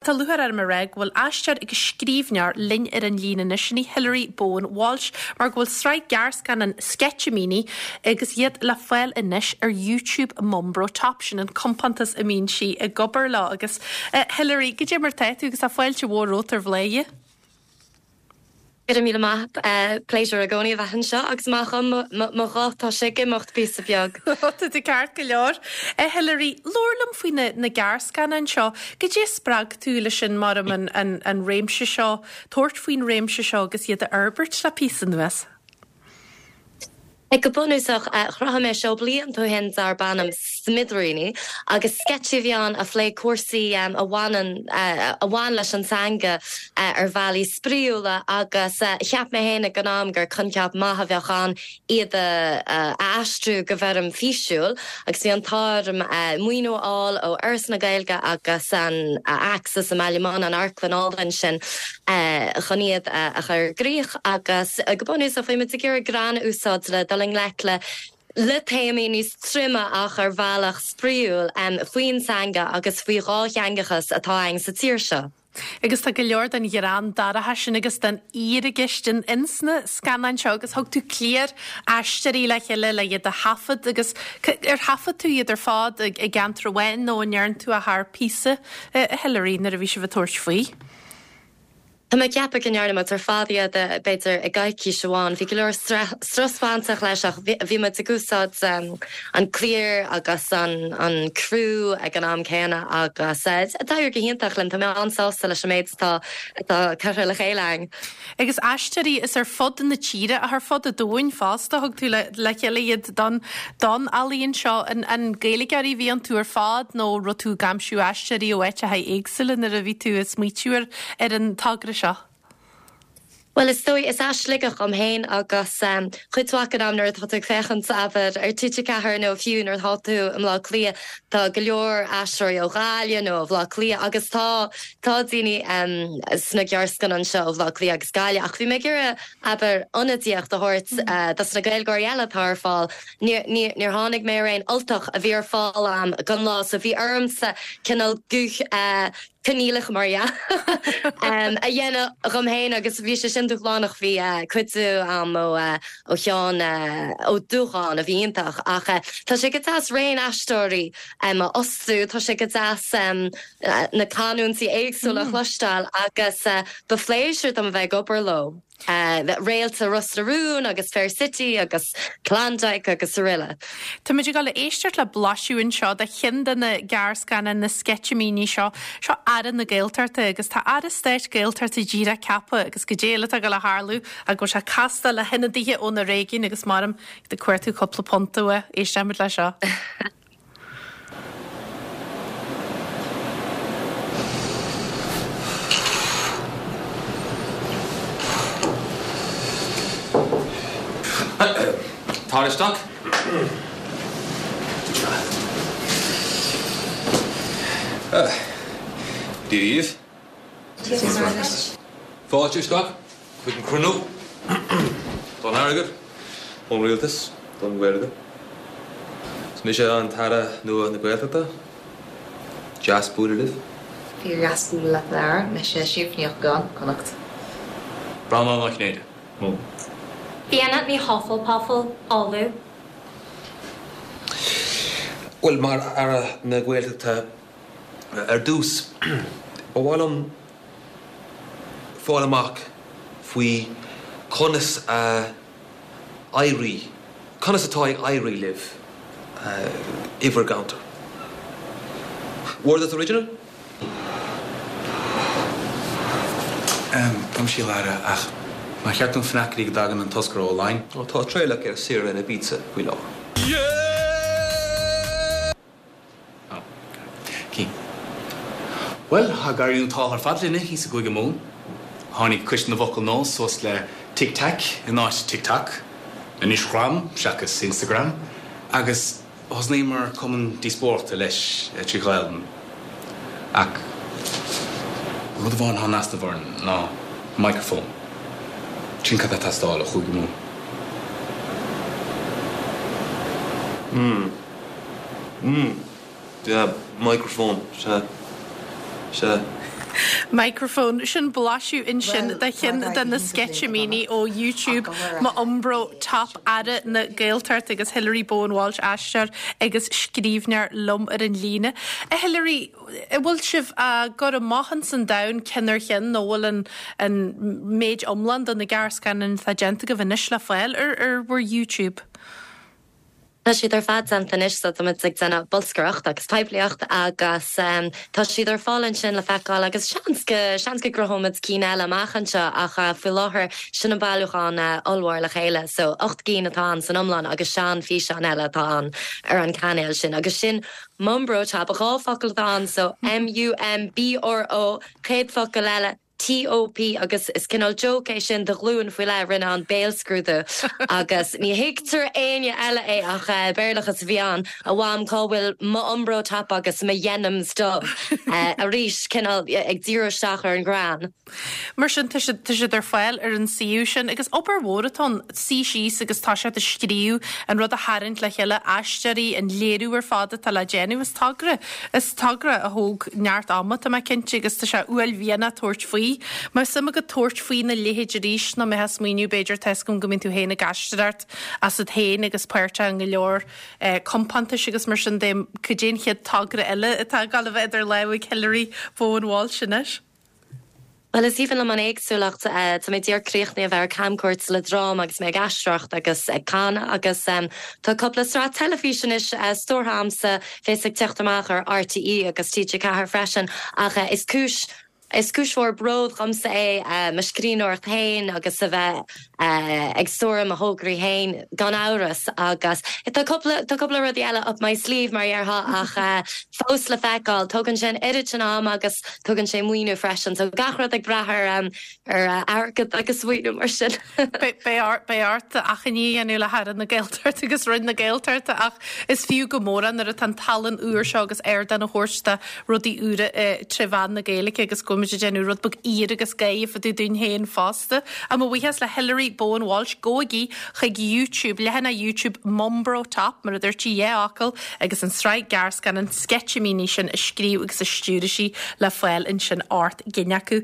Tá lúcháir orm a rá go bhfuil aisteoir agus scríbhneoir linn ar an líne anois, sin í Hilary Bowen Walsh, mar go bhfuil sraith gearrscannán Sketchimíní agus iad le fáil anois ar YouTube Mumbro Top, sin an compántas a mbíonn sí ag obair leo. Agus Hilary, goidé mar tá tú agus tá fáilte mhór romhat ar Bhladhaire. Go raibh míle maith. Pléisiúr i gcónaí a bheith anseo agus maith dhom mo ghuth, tá sé ag imeacht píosa beag. Tá tú ceart go leor. A Hilary, labhair liom faoi na gearrscannáin seo. Goidé a spreag tú leis sin mar an an réimse seo, tabhairt faoin réimse seo agus iad a fhorbairt le píosa anuas? Go bunúsach, chruthaigh mé seó blianta ó shin darb ainm Smidiríní agus sceitsí a bhí ann a phléigh cúrsaí a bhaineann, a bhain leis an teanga ar bhealaí spraíúla agus cheap mé féin ag an am gur coincheap maith a bheadh ann iad a aistriú go bhfoirm físiúil agus bhí an t-ádh orm maoiniú a fháil ó Fhoras na Gaeilge agus an Axis i mBaile Munna, an amharclann álainn sin, chun iad a chur i gcrích agus go bunúsach bhí muid ag iarraidh greann a úsáid le dul i ngleic le le téamaí níos troime ach ar bhealach spraíúil faoin teanga agus faoi dhátheangachas atá againn sa tír seo. Agus tá go leor den ghreann dorcha sin agus den fhíorcheist in ins na scannáin seo agus thug tú cliar aisteoirí le chéile le iad a thaifead agus ar thaifead tú iad ar fad i gceantar amháin nó an ndearn tú é thar píosa, a Hilary, nuair a bhí sibh ag tabhairt faoi? Tá mé ag ceapadh go ndearna muid ar fad iad, b'fhéidir, i gcoicís amháin. Bhí go leor strus bainteach leis ach bhí muid ag úsáid an cliar agus an criú ag an am céanna agus d'éirigh go hiontach linn. Tá mé an-sásta leis an méid atá curtha le chéile againn. Agus aisteoirí is ar fud na tíre ach ar fud an domhain fosta, thug tú le chéile iad don don ealaíon seo. An Gaeilgeoirí a bhí iontu ar fad nó raibh tú ag aimsiú aisteoirí ó áiteacha éagsúla nuair a bhí tú ag smaoitiú ar ar an togra seo? Bhuel, is dóigh, is as Sligeach dhom féin agus cuid mhaith den am nuair atá tú ag féachaint, abair, ar TG4 nó fiú nuair atá tú i mBleá Cliath, tá go leor aisteoirí ó Ghaillimh nó ó Bhleá Cliath agus tá, tá daoine sna gearrscannáin seo ó Bhleá Cliath agus Gaillimh ach bhí mé ag iarraidh, abair, ionadaíocht a thabhairt dos na Gaeilgeoirí eile atá ar fáil. Níor, níor tháinig mé ar aon Ultach a bhí ar fáil a'm don lá so bhí ormsa cineál guth coinníollach mar dhea a dhéanamh dhom féin agus bhí sé sin dúshlánach. Bhí cuidiú a'm ó ó Sheán Ó Dúcháin a bhí iontach ach tá sé go deas raon aisteoirí a fhostú, tá sé go deas na canúintí éagsúla a chloisteáil agus ba phléisiúr dom a bheith ag obair leo. Réalta Ros na Rún agus Fair City agus Klondike agus aroile. Táimid ag dul a éisteacht le blaiseadh anseo de cheann de na gearrscannáin, na sceitimíní seo. Seo Aire na Gaeltachta agus tá Aire Stáit Gaeltachta díreach ceaptha agus goidé eile atá ag dul a tharlú ach go bhfuil sé ag castáil le hionadaithe ó na réigiúin agus maram ag cuartú cúpla punt uaidh. Éistfimid leis seo. Tar isteach. Dia dhaoibh. Fáilte isteach chuig an cruinniú don airgead ón Rialtas don Ghaeilge. Is mise an tAire nua na Gaeltachta. Deas bualadh libh. Fíor-dheas bualadh leat a Aire. Mise Síofra Ní Eochagáin, Connacht. Breandán Ó Cinnéide, Mumhan. Fiona Ní Hufflepuffle, Uladh. Bhuel, mar Aire na Gaeltachta, Ar dtús, ba mhaith liom fáil amach faoi conas a éirigh, conas atá ag éirí libh i bhur gceantar. Were this original? Gabh mo leithscéal a Aire, ach nár cheart dúinn fanacht go dtí go dtagann an toscaire ó Laighin? Tá Traolach ar saoire in Ibiza faoi láthair. Bhuel, tá ag éirí an t-ádh ar fad linne thíos i gCúige Mumhan. Tháinig Coiste na bhFocal Nua suas le Tic Tac in áit TikTok, Inishgram seachas Instagram, agus thosnaíomar cumann díospóireachta leis trí Ghaelainn. Ach rud amháin atá in easnamh orainn ná microphone. Sin cad tá ag teastáil ó Chúige Mumhan. Mm. Mm. Yeah, microphone, sea. Sea. Microphone, Sin blaiseadh ansin de cheann de na sceitimíní ó YouTube M'Iombro Top Aire na Gaeltachta agus Hilary Bowen Walsh, aisteoir agus scríbhneoir liom ar an líne. A Hilary, an bhfuil sibh á gcur amach ins an domhan ceann ar cheann nó bhfuil an an méid iomlán de na gearrscannáin atá déanta agaibh anois le fáil ar ar bhur YouTube? Tá siad ar fad déanta anois so táimid ag déanamh bolscaireacht agus poiblíocht agus tá siad ar fáil ansin le feiceáil agus seans go, seans go gcruthóimid cinn eile amach anseo ach faoi láthair sin an bailiúchán ollmhór le chéile so 8 gcinn atá ann san iomlán agus sean-fhíseáin eile atá ann ar an cainéal sin agus sin Mumbrotop, 2 focal atá ann so M-U-M-B-R-O chéad focal eile TOP agus is cineál joke é sin do ghlúin faoi leith a rinne an béalscrúdú agus ní thuigtear éinne eile é ach Béarlachas a bhí ann, a mham cá bhfuil m'Umbro top agus mo dhenims dubh? Arís cineál ag díriú isteach ar an ghreann. Mar sin tá siad, tá siad ar fáil ar an suíomh sin agus obair mhór atá ann, suí síos agus tá siad a scríobh, an rud a tharraingt le chéile, aisteoirí, an léiriú ar fad atá le déanamh, is togra. Is togra a thóg neart ama, tá mé cinnte, agus tá sé uaillmhianach tabhairt faoi. Má bheadh suim agat tabhairt faoina leithéid arís, nó mbeifeá ag smaoineamh, b'fhéidir, tá 'fhios agam go mbíonn tú féin ag aisteoireacht asat féin agus páirteach i go leor compántais agus mar sin de, cad é an chéad togra eile atá ag dul a bheith idir lámha ag Hilary Bowen Walsh anois? Bhuel, is aoibhinn liom an éagsúlacht. Tá mé díreach críochnaithe a bheith ar camchuairt le dráma agus mé ag aisteoireacht agus ag canadh agus tá cúpla sraith teilifíse anois stiúrtha a'msa, bheas ag teacht amach ar RTÉ agus TG4 freisin ach is cúis is cúis mhór bród dhomsa é mo scríbhneoireacht féin agus a bheith ag stiúradh mo thograí féin gan amhras agus tá cúpla tá cúpla rudaí eile up my sleeve mar a dhéarfá ach fós le feiceáil. Tógann sé an oiread sin ama agus tógann sé maoiniú freisin so gach rud ag brath ar ar airgead agus maoiniú mar sin. Beidh ort achainí a dhéanamh le hAire na Gaeltachta agus Roinn na Gaeltachta ach is fiú go mór é nuair atá an tallann úr seo agus ardán a thabhairt do rudaí úra tré mheán na Gaeilge agus go bhfuil muid ag déanamh rud beag aoir agus gáire fá dtaobh dúinn féin fosta. Ach mo bhuíochas le Hilary Bowen Walsh, gabhaigí chuig YouTube, leathanach YouTube Mumbro Top, mar a dúirt sí, dhá fhocal, agus an tsraith gearrscannán sceitimíní sin a scríobh agus a stiúraigh sí le fáil ansin 8 gcinn acu.